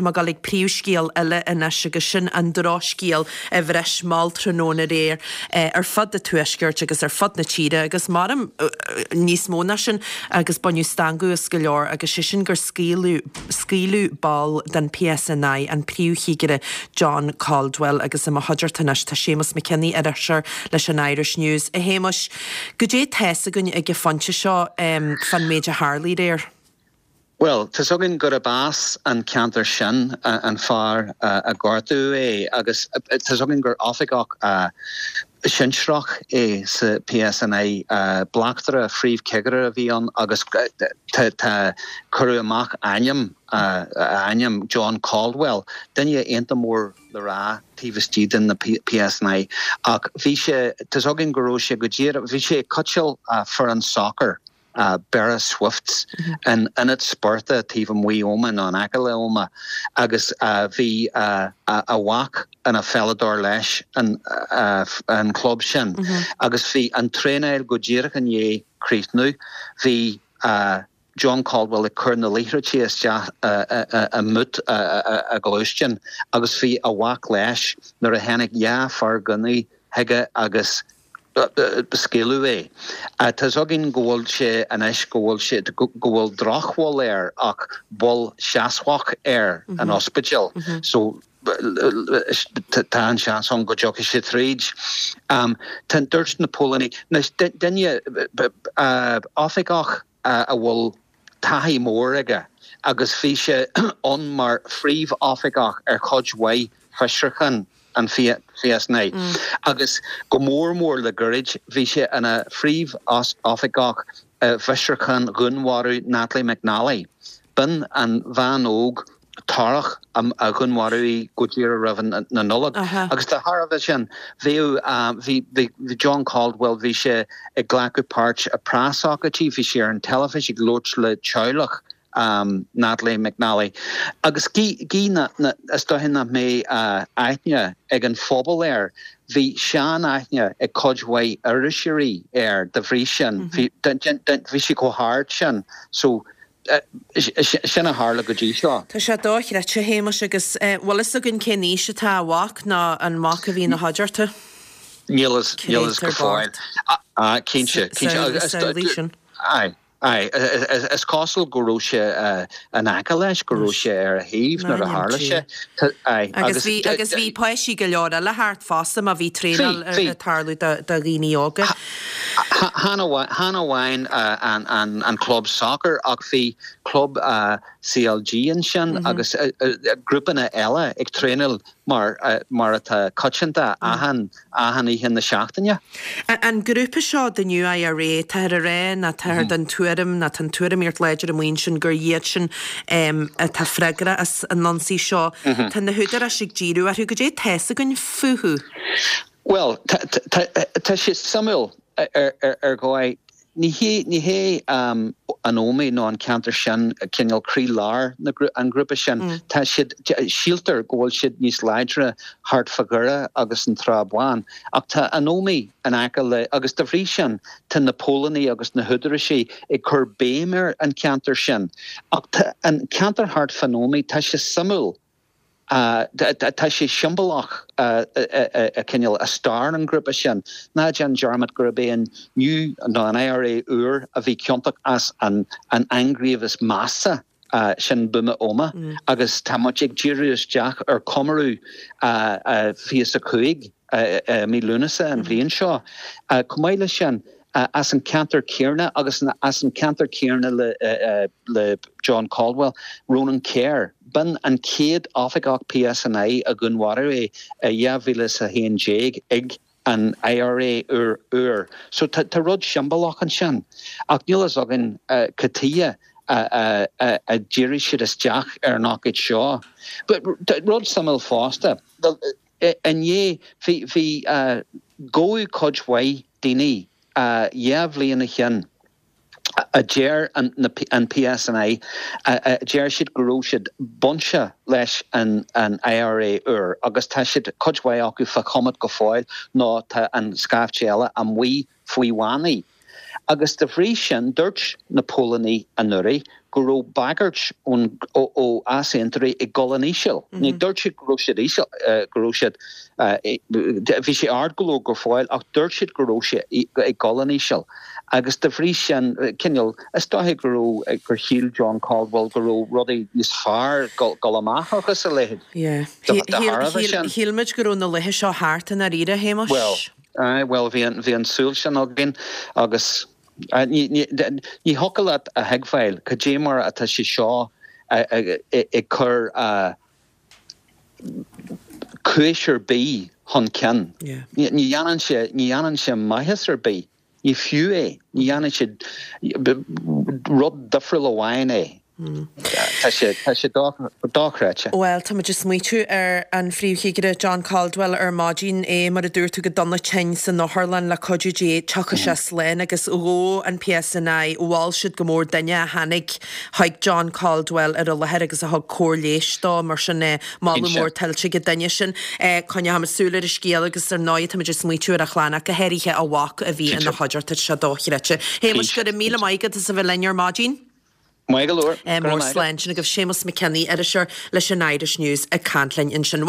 tá mé ag dul ag príomhscéal eile anois agus sin an drochscéal a bhris mall tráthnóna aréir ar fud an tuaiscirt agus ar fud na tíre agus maram níos mó ná sin agus baineadh stangadh as go leor agus sé sin gur scaoileadh scaoileadh ball den PSNI, an Príomhchigire John Caldwell agus i mo chuideachta anois tá Séamus McKinney, iriseoir leis an Irish News. A Shéamuis, goidé tá's againn ag an phointe seo fán méid a tharlaigh aréir? Bhuel, tá's againn gurb as an ceantar sin an fear a gortaíodh é agus tá's againn gur oifigeach sinsearach é sa PSNI. Bleachtaire, phríomhchigire a bhí ann agus tá, cuireadh amach ainm, a ainm, John Caldwell, duine iontach mór le rá taobh istigh den na PSNI ach bhí sé, tá's againn go raibh sé go díreach, bhí sé ag cóitseáil foireann sacair. Beara Swifts, in ionad spóirt taobh amuigh Ómaigh nó in aice le Ómaigh agus bhí a mhac ina pheileadóir leis an chlub sin agus bhí an traenáil go díreach i ndiaidh críochnú. Bhí John Caldwell ag cur na liathróidí isteach i mboot a ghluaisteáin agus bhí a mhac leis nuair a tháinig 2 fear gunnaí chuige agus scaoileadh é. Tá's againn go bhfuil sé anois, go bhfuil sé, go bhfuil drochbhail air ach bail seasmhach air in ospidéal so tá an seans ann go dtiocfaidh sé tríd. Tá, dúirt na póilíní, anois duine, oifigeach a bhfuil taithí mór aige agus bhí sé ann mar phríomhoifigeach ar chuid mhaith fiosrúchán an PSNI agus go mór mór le goirid bhí sé ina phríomhoifigeach i bhfiosrúchán dhúnmharú Natalie McNally. B'in an bhean óg torrach a dhúnmharaíodh í go díreach roimh na Nollag. Agus de thairbhe sin, bhíodh, bhí, bhí John Caldwell, bhí sé ag glacadh páirt i preasócáidí, bhí sé ar an teilifís ag labhairt le teaghlach Natalie McNally. Agus gidh na, na, is dóiche nach mbeidh aithne ag an phobal air, bhí sean-aithne ag cuid mhaith iriseoirí air de bhrí sin, bhí, bhí sé chomh hard sin. So, Sin a tharla go dtí seo. Tá sé dochreidte, a Shéamais, agus bhfuil fhios againn cén aois atá a mhac nó an mac a bhí ina chuideachta? Níl fhios, níl fhios go fóill. Cinnte, cinnte. Samhlaigh sin. Aye, aye. Is cosúil go raibh sé in aice leis, go raibh sé ar a thaobh nuair a tharla sé. Aye. Agus bhí, agus bhí páistí go leor eile thart fosta má bhí traenáil ag tarlú do dhaoine óga. Chan amháin an club sacair ach bhí club CLG ansin agus grúpanna eile ag traenáil mar atá coitianta achan oíche na seachtaine. An grúpa seo, The New IRA, táthar ag rá nó táthar den tuairim nó tá an tuairimíocht láidir amuigh ansin gur iad sin atá freagrach as an ionsaí seo. Tá na húdaráis ag díriú orthu. Goidé tá fhios againn fúthu? Bhuel, tá sé suimiúil ar dhóigh. Ní hé, ní hé an Ómaigh nó an ceantar sin cineál croí-lár an ghrúpa sin. Tá siad, síltear go bhfuil siad níos láidre thart fá Dhoire agus an Trá Bháin. Ach tá an Ómaigh in aice le, agus dá bhrí sin tá na póilíní agus na húdaráisí ag cur béim ar an cheantar sin. Ach tá an ceantar thart fán Ómaigh, tá sé suimiúil. Tá sé siombalach cineál i stair an ghrúpa sin. Ná déan dearmad gurb é an New nó an IRA úr a bhí ciontach as an ainghníomh is measa sin Buama Ómaigh agus tá muid ag díriú isteach ar chomóradh 25 i mí Lúnasa an bhliain seo. Chomh maith leis sin, as an ceantar céanna agus as an ceantar céanna le John Caldwell, Ronan Kerr. B'in an chéad oifigeach PSNI a dhúnmharaíodh é i 2011 ag an IRA úr. So tá rud siombalach ansin. Ach níl fhios againn cad tuighe a dhírigh siad isteach ar an ócáid seo. But rud suimiúil fosta, Inné, bhí, bhí, gabhadh cuid mhaith daoine 2 bhliain ó shin a deir an, na, an PSNI, a deir siad go raibh siad bainte leis an, an IRA úr agus tá siad, cuid mhaith acu fá choimeád go fóill nó tá an scaifte eile amuigh faoi bhannaí. Agus de bhrí sin, dúirt na póilíní anuraidh. go raibh bagairt ón ó easaontóirí ag dul in íseal. Ní dúirt siad go raibh siad íseal, go raibh siad, bhí sé ard go leor go fóill ach dúirt siad go raibh sé ag dul in íseal. Agus de bhrí sin, cineál, is dóiche go raibh, gur shíl John Caldwell go raibh rudaí níos fearr dul amach agus a leithéid de thairbhe sin. Shíl muid go raibh na laethe seo thart i ndáiríre, a Shéamais. Bhuel, aye, bhuel bhí an, bhí an tsúil sin againn agus ní, ní, ní thiocfadh leat a thuigbheáil cad é mar atá sé seo ag cur cúis ar bith chun cinn. Ní dhéanann sé, ní dhéanann sé maitheas ar bith. Ní fiú é. Ní dhéanann sé rud difriúil amháin é. Tá sé, tá sé dochreidte. Bhuel, táimid ag smaoitiú ar an Phríomh-Chigire John Caldwell ar maidin, é, mar a dúirt tú, go dona tinn san otharlann, le cuidiú Dé, tiocfaidh sé slán agus ghabh an PSNI, mhol siad go mór duine a tháinig chuig John Caldwell ar an láthair agus a thug cóir leighis dó, mar sin moladh mór tuillte ag an duine sin. Coinneochaimid súil ar an scéal agus ar ndóigh táimid ag smaoitiú ar a chlann ach go háirithe a mhac a bhí ina chuideachta, tá sé dochreidte. Shéamais, go raibh míle maith agat as a bheith linn ar maidin. Maith go leor. Mór slán. Sin agaibh Séamus McKinney, iriseoir leis an Irish News ag caint linn ansin.